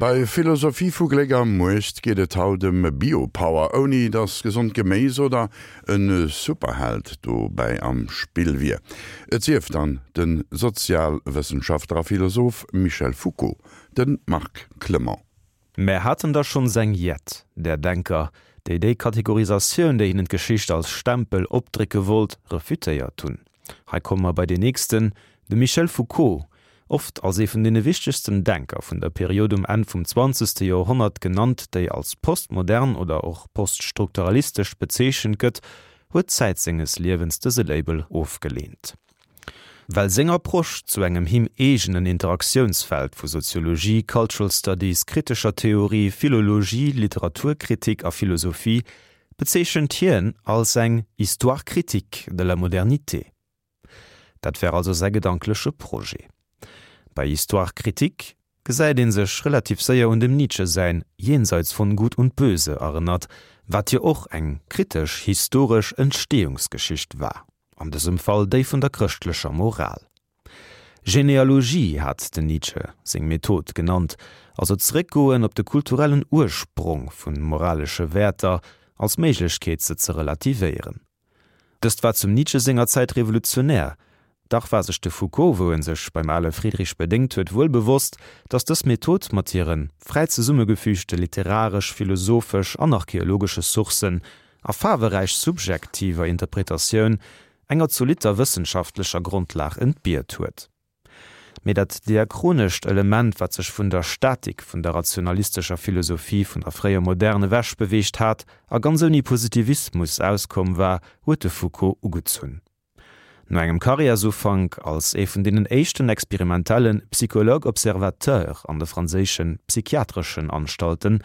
Bei Philosophie vu Gléck a Muecht geet et haut ëm Biopower, ouni datt gesond Geméis oder e Superheld dobäi am Spill wier. Et sief dann de Sozialwëssenschaftler a Philosoph Michel Foucault, de Marc Clement. Mär haten der schonns eng jett där Denker, déi déi Kategorisatioun, déi hinnen d'Geschicht als Stempel opdrécke wollt, refutéiert hunn. Hei komme mer bei deen nächsten, de Michel Foucault, oft als ee vun deene wichtegsten Denker vun der Period um Enn vum zwanzegste Joerhonnert genannt, déi als postmodern oder och poststrukturalistesch bezeechent gëtt, huet Zäit senges Liewens dëse Label ofgeleent. Well seng Approche zu engem him eegenen Interaktiounsfeld vu Soziologie, Cultural Studies, kritescher Theorie, Philologie, Literaturkritik a Philosophie bezeechent hien als eng Histoire critique de la modernité. Dat wär also säi gedankleche Projet. Bei Histoire critique gesäit ee sech relativ séier un dem Nietzsche säin Jenseits von Gut und Böse erënnert, wat jo och eng kritesch historesch Entstehungsgeschicht war. An dësem Fall déi vun der chrëschtlecher Moral. Genealogie hat den Nietzsche seng Method genannt, also zeréckgoen op de kulturellen Ursprong vu moralesche Wäerter als Méiglechkeet se ze relativéieren. Dëst war zum Nietzsche senger Zäit revolutionär. Dach war sech de Foucault, wou en sech beim ale Friedrich bedéngt huet, wuel bewosst, datt dës Method mat hire fräi zesummegefügte literaresch, philosophesch an archeologesche Sourcen a faarweräich subjektiver Interpretatioun enger zolitter wëssenschaftlecher Grondlag entbiert huet. Mee dat diachronescht Element, wat sech vun der Statik vun der rationalistescher Philosophie vun der fréier Moderne ewech beweegt hat a ganz ouni Positivismus auskomm war, huet de Foucault ugezunn. No engem Karriärsufank als ee vun deenen éischten experimentelle Psychologue observateur an de franséische psychiatreschen Anstalten,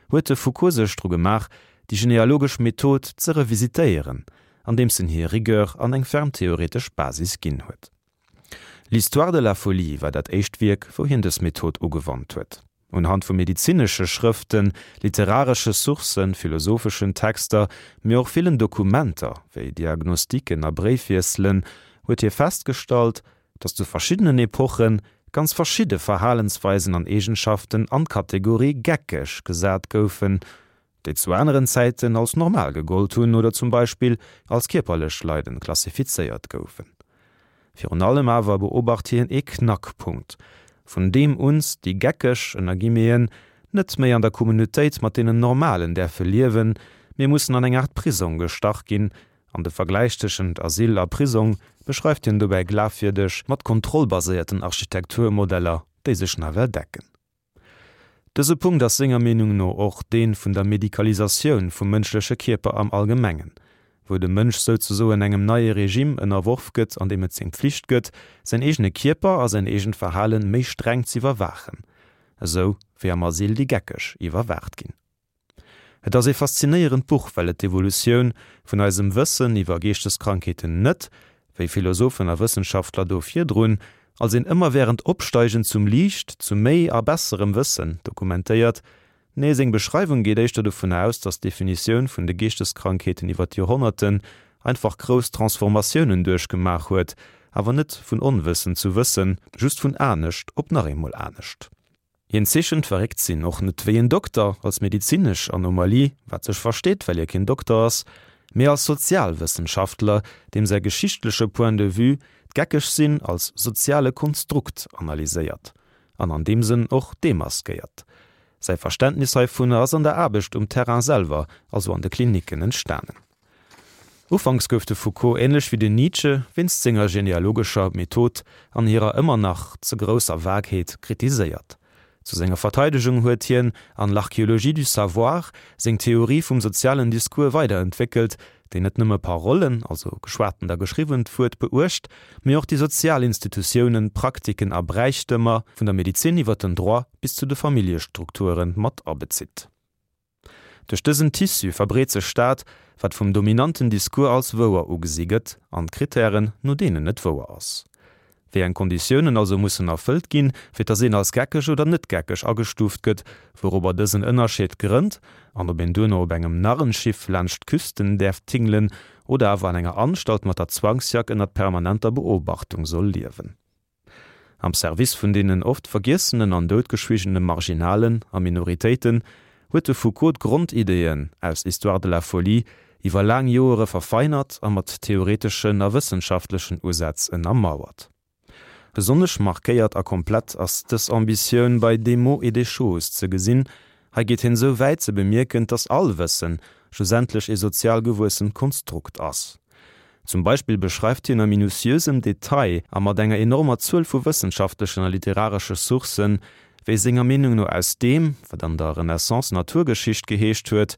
huet de Foucault sech dru gemaach, déi genealogesch Method ze revisitéieren, andeems en hir Rigueur an eng ferm theoretesch Basis ginn huet. L'Histoire de la folie war dat éischt Wierk, wou hien dës Method ugewannt huet. Unhand vu medezinesche Schrëften, literaresche Sourcen, philosopheschen Texter, mee och villen Dokumenter, wéi Diagnostiken a Bréifwiesselen, huet hie festgestallt, datt zu verschiddenen Epoche ganz verschidde Verhalensweisen an Eegenschaften an d'Kategorie geckeg gesat goufen, déi zu aneren Zäiten als normal gegollt hunn oder zum Beispill als kierperlech Leiden klassifizéiert goufen. Virun allem awer beobacht hien ee Knackpunkt, vun deem uns déi Geckeg, ënner Guillemeten, net méi an der Communautéit mat deenen Normalen däerfe liewen, mee mussen an eng Aart Prisong gestach ginn, an de Vergläich tëschent Asyl a Prisong beschreift hien dobäi glafwierdeg mat kontrollbaséierten Architekturmodeller, déi sech nawell decken. Dëse Punkt ass senger Meenung no och dee vun der Medikalisatioun vum mënschleche Kierper am Allgemengen, wou de Mënsch souzesoen engem neie Regime ënnerworf gëtt, an deem et seng Pflicht gëtt, säin eegene Kierper a säin eegent Verhalen méi streng z'iwwerwaachen, esou wéi am Asyl déi Geckeg iwwerwaacht ginn. Et ass ee faszinéierend Buch, well et d'Evolutioun vun eisem Wëssen iwwer Geeschteskrankheeten net, wéi Philosophen a Wëssenschaftler do virdrun, als een ëmmerwährend Opsteigen zum Liicht, zu méi a besserem Wëssen dokumentéiert. Nee, seng Beschreiwung geet éischter dovun aus, datt d'Definitioun vun de Geeschteskrankheeten iwwer d'Joerhonnerten einfach grouss Transformatiounen duerchgemaach huet, awer net vun Onwëssen zu Wëssen, just vun anescht op nach eemol anescht. Hien zeechent d'Verréckt-Sinn och net wéi en Dokter, als medezinesch Anomalie, wat sech versteet, well hie keen Dokter ass, mee als Sozialwëssenschaftler, deem säi geschichtleche Point de vue d'Geckeg-Sinn als soziale Konstrukt analyséiert an an deem Sënn och demaskéiert. Säi Verständnis heivunner ass an der Aarbecht um Terrain selwer, also an de Klinicken, entstanen. Ufanks gouf de Foucault, änlech wéi den Nietzsche, wéinst senger genealogescher Method an hirer ëmmer nach ze grousser Vagheet kritiséiert. Zu senger Verteidegung huet hien an L'archéologie du savoir seng Theorie vum sozialen Discours weiderentwéckelt, déi net nëmme Parollen, also geschwatent a geschriwwent Wuert, beuecht, mee och déi sozial Institutiounen, Praktiken a Bräichtëmer, vun der Medezin iwwer den Droit bis zu de Familljestrukture mat abezitt. Duerch dësen Tissu verbreet sech dat, wat vum dominanten Discours als wouer ugesi gëtt, an d'Krittären, no deenen et wouer ass. Wéi eng Konditiounen also mussen erfëllt ginn, fir dass een als geckeg oder net geckeg agestuuft gëtt, wourobber dësen Ënnerscheed grënnt, an ob een duerno op engem Narrenschiff laanscht d'Küsten däerf tingelen oder awer an enger Anstalt mat der Zwangsjack ënnert permanenter Beobachtung soll liewen. Am Service vun deenen oft vergiessenen an doutgeschwigene Marginalen a Minoritéiten huet de Foucault d'Grondideeën aus Histoire de la folie iwwer laang Joere verfeinert a mat theoreteschen a wëssenschaftlechen Usätz ënnermauert. Besonnesch markéiert a komplett ass dës Ambitioun bei Des mots et des choses ze gesinn. Hei geet hien esou wäit ze bemierken, dass all Wëssen schlussendlech ee sozial gewuessent Konstrukt ass. Zum Beispill beschreift hien a minutiösem Detail a mat enger enormer Zuel vu wëssenschaftlechen a literaresche Sourcen, wéi senger Meenung no aus deem, wat an der Renaissance Naturgeschicht geheescht huet,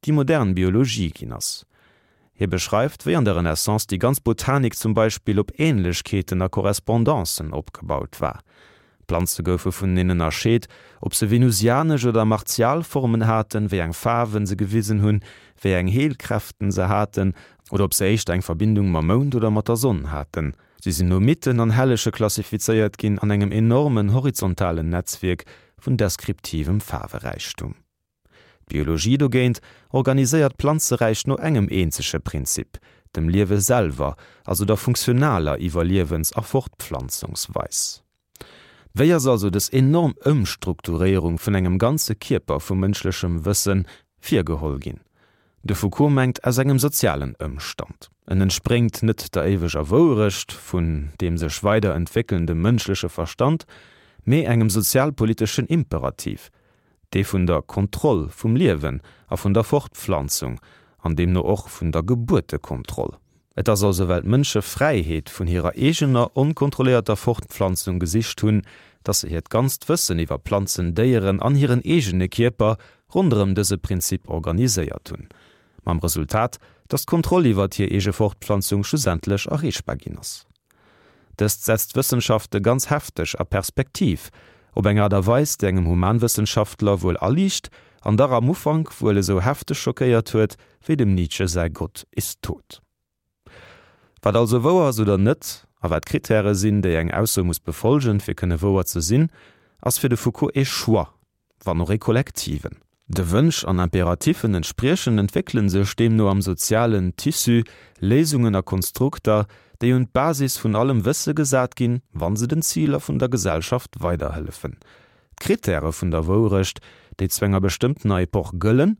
déi modern Biologie ginn ass. Hie beschreift, wéi an der Renaissance déi ganz Botanik zum Beispill op Ähnlechkeeten a Korrespondancen opgebaut war. Planze goufe vuneneen ënnerscheet, ob se venusianesch oder martial Formen haten, wéi eng Faarwen se gewisen hunn, wéi eng Heelkräften se haten oder ob se éischter eng Verbindung mam Mound oder mat der Sonn haten. Si sinn no Mythen an Hellege klassifizéiert ginn an engem enormen horizontalen Netzwierk vun deskriptivem Faarweräichtum. D'Biologie dogéint organiséiert d'Planzeräich no engem eenzege Prinzip, dem Liewe selwer, also der funktionaler Iwwerliewens a Fortpflanzungsweis. Wéi ass also dës enorm Ëmstrukturéierung vun engem ganze Kierper vu mënschlechem Wësse virgeholl ginn? De Foucault mengt aus engem sozialen Ëmstand. En entspréngt net der éiweger Wouerecht vun deem sech weider entwéckelnde mënschleche Verstand, mee engem sozialpoliteschen Imperativ, dee vun der Kontroll vum Liewen a vun der Fortpflanzung, an deemno och vun der Gebuertekontroll. Et ass also well d'Mënsche Fräiheet vun hirer eegener onkontrolléierter Fortpflanzung gesicht hunn, datt se hiert ganzt Wëssen iwwer Planzen, Déieren an hiren eegene Kierper ronderëm dëse Prinzip organiséiert hunn, mam Resultat, datt d'Kontroll iwwert hir eege Fortpflanzung schlussendlech erreechbar ginn ass. Dëst setzt d'Wëssenschafte ganz hefteg a Perspektiv, op eng Aart a Weis, déi engem Humanwëssenschaftler wuel aliicht an dach am Ufank wuel esou hefteg schockéiert huet, wéi dem Nietzsche säi Gott ist tot. Wat also wouer ass oder net, a wat d'Krittäre sinn, déi eng Ausso muss befolgen, fir kënne wouer ze sinn, ass fir de Foucault ee Choix, wann och ee kollektiven. De Wënsch an Imperatiffen entspriechend entwéckele sech deemno am sozialen Tissu Léisungen a Konstrukter, déi un d'Basis vun allem Wësse gesat ginn, wa se den Ziler vun der Gesellschaft weiderhëllefen. D'Krittäre vun der Wourecht, déi zu enger bestëmmtener Epoch gëllen,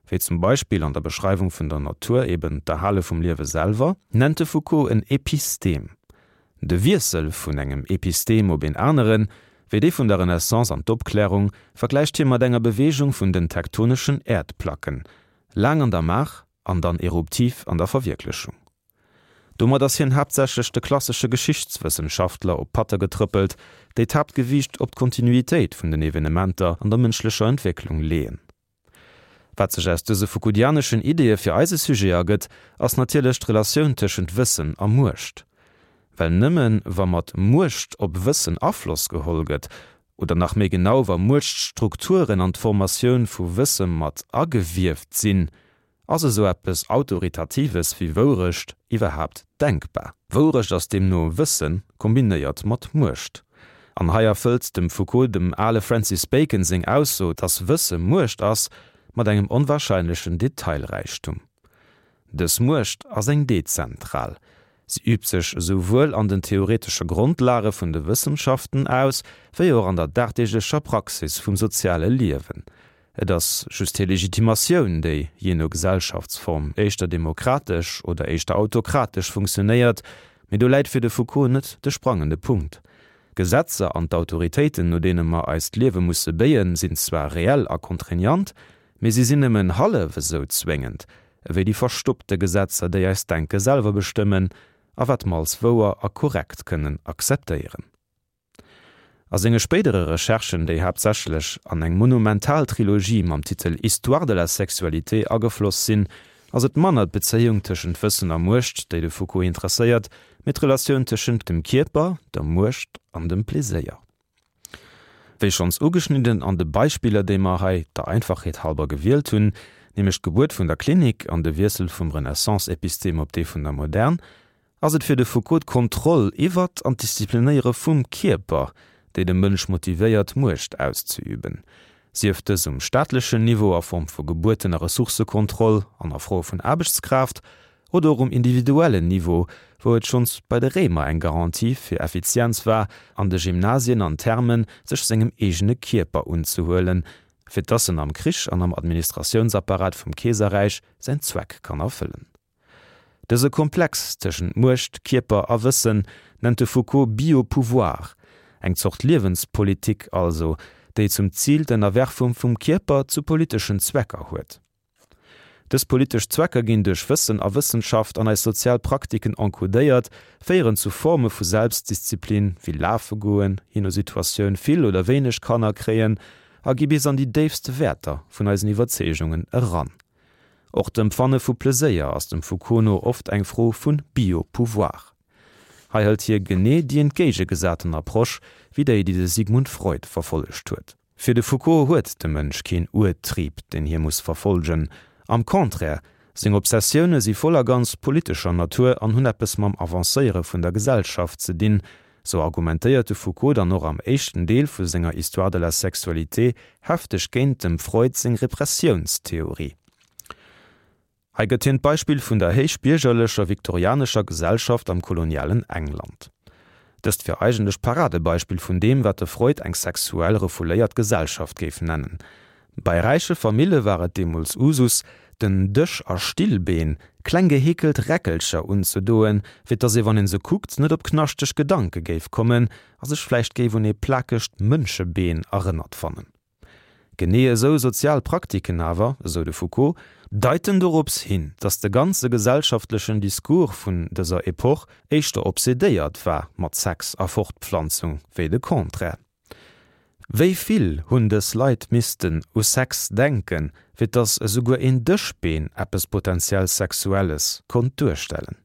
wéi zum Beispill an der Beschreiwung vun der Natur eben d'Erhale vum Liewe selwer, nennt de Foucault en Epistem. De Wiessel vun engem Epistem op een aneren, wéi dee vun der Renaissance an d'Opklärung, vergläicht hie mat enger Beweegung vun den tektoneschen Äerdplacken, laang an der Maach an dann eruptiv an der Verwierklechung. Domat ass hien haaptsächlech de klassesche Geschichtswëssenschaftler op d'Patte getrëppelt, déi d'Haaptgewiicht op d'Kontinuitéit vun den Evenementer an der mënschlecher Entwécklung leeën. Wat sech aus dëse Foucauldianeschen Ideeë fir eise Sujet ergëtt, ass natierlech d'Relatioun tëschent Wëssen a Muecht. Well nëmme wa mat Muecht op Wëssen Afloss geholl gëtt, oder nach méi genau wa Muechtstrukturen an d'Formatioun vu Wësse mat agewieft sinn, Ass esou eppes Autoritatives wéi Wourecht iwwerhaapt denkbar? Wourecht ass deemno Wësse kombinéiert mat Muecht. An hei erfëllt dem Foucault dem ale Francis Bacon seng Ausso, dass Wësse Muecht ass, mat engem onwahrscheinlechen Detailräichtum. Dës Muecht ass eng dezentral. Si übt sech esouwuel an den theoretesche Grondlage vun de Wëssenschaften aus, wéi och an der dagdeeglecher Praxis vum soziale Liewen. Et ass just hir Legitimatioun, déi, jee no Gesellschaftsform, éischter demokratesch oder éischter autokratesch funktionéiert. Mee do läit fir de Foucault net de sprangende Punkt. D'Gesetzer an d'Autoritéiten, no deene mer eist Liewe musse béien, sinn zwar reell a contraignant, mee si sinn nëmmen hallef esou zwéngend ewéi déi verstoppte Gesetzer, déi eist Denke selwer bestëmmen a wat mer als wouer a korrekt kënnen akzeptéieren. A senge spéidere Recherchen, déi haaptsächlech an eng monumental Trilogie mam Titel Histoire de la sexualité agefloss sinn, ass et manner d'Bezéiung tëschent Wëssen a Muecht, déi de Foucault interesséiert, mee d'Relatioun tëschent dem Kierper, der Muecht an dem Pleséier. Wéi schonns ugeschnidden an de Beispiller, déi mer hei der Einfachheet halber gewielt hunn, nämlech d'Gebuert vun der Klinik an de Wiessel vum Renaissance-Epistem op dee vun der Modern, Ass et fir de Foucault d'Kontroll iwwert an d'Disziplinéiere vum Kierper, déi de Mënsch motivéiert, Muecht auszeüben, sief dës um staatlechen Niveau a Form vu Gebuerten a Ressourcëkontroll an a Froe vun Aarbechtskraaft. Oder och um individuellen Niveau, wou et schonns bei de Réimer eng Garantie fir Effizienz war, an de Gymnasien an Thermen sech sengem eegene Kierper unzehuelen, fir dass en am Krich an am Administratiounsapparat vum Keeserräich säin Zweck kann erfëllen. Dëse Komplex tëschent Muecht, Kierper a Wëssen nennt de Foucault Bio-Pouvoir, eng Zort Liewenspolitik also, déi zum Zil d'Ënnerwerfung vum Kierper zu politeschen Zwecker huet. Dës politesch Zwecker ginn duerch Wëssen a Wëssenschaft an eis sozial Praktiken encodéiert, féieren zu Forme vu Selbstdisziplin, wéi lafe goen, jee no Situatioun vill oder wéineg Kanner kréien, a gi bis an déi déifste Wäerter vun eisen Iwwerzeegungen eran. Och d'Empfanne vu Pleséier ass dem Foucault no oft eng Fro vu Bio-Pouvoir. Hei hëlt hie genee déi entgéigegesaten Approche wéi déi, déi de Sigmund Freud verfollegt huet. Fir de Foucault huet de Mënsch keen Urtrieb, deen hie muss verfollgen. Am Contraire, seng Obsessioune si voll a ganz politescher Natur an hunn eppes mam Avancéiere vun der Gesellschaft ze dinn. Sou argumentéiert de Foucault dann och am éischten Deel vu senger Histoire de la sexualité hefteg géint dem Freud seng Repressiounstheorie. Hei gëtt hien d'Beispill vun der héichbiergerlecher viktorianescher Gesellschaft am kolonialen England. Dëst wier eigentlech d'Paradebeispill vun deem, wat de Freud eng sexuell refouléiert Gesellschaft géif nennen. Bei räiche Famille war et deemools Usus, den Dësch a Stillbeen, kleng geheekelt Räckelcher unzedoen, fir dass ee wann een se kuckt net op knaschteg Gedanke géif kommen a sech vläicht géif un ee plakegt Mënschebeen erënnert fannen. Genee esou sozial Praktiken awer, esou de Foucault, deiten dorops hin, dass de ganze gesellschaftlechen Discours vun dëser Epoch éischter obsedéiert war mat Sex a Fortpflanzung wéi de Contraire. Wéi vill hunn dës Leit missten u Sex denken, fir dass esouguer een Dëschbeen eppes potenziell Sexuelles konnt duerstellen?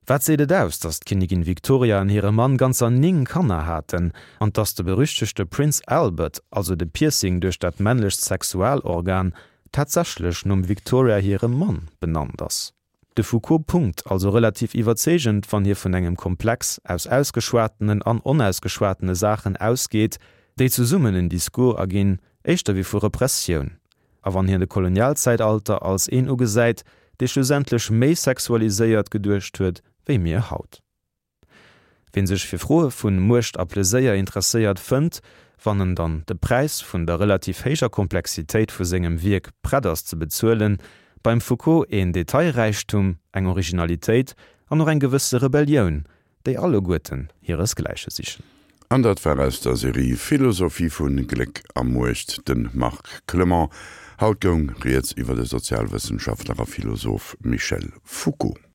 Wat seet et aus, datt d'Kinnigin Victoria an hire Mann ganzer 9 Kanner haten an datt de berüchtegte Prince Albert, also de Piercing duerch dat männlecht Sexualorgan, tatsächlech nom Victoria hirem Mann benannt ass? De Foucault punkt also relativ iwwerzeegend, wann hie vun engem Komplex aus ausgeschwatenen an onausgeschwatene Saachen ausgeet, déi zesummen en Discours erginn, éischter wéi vu Repressioun. A wann hien de Kolonialzäitalter als een ugesäit, dee schlussendlech méi sexualiséiert geduecht huet wéi mir haut. Ween sech fir Froe vu Muecht a Pleséier interesséiert, fënnt, wann en dann de Präis vun der relativ héijer Komplexitéit vu sengem Wierk prett ass ze bezuelen, beim Foucault een Detailräichtum, eng Originalitéit an och eng gewësse Rebellioun, déi alleguerten hiresgläiche sichen. An dat war aus der Serie Philosophie vu Gléck a Muecht de Marc Clement. Haut goung rieds iwwer de Sozialwëssenschaftler a Philosoph Michel Foucault.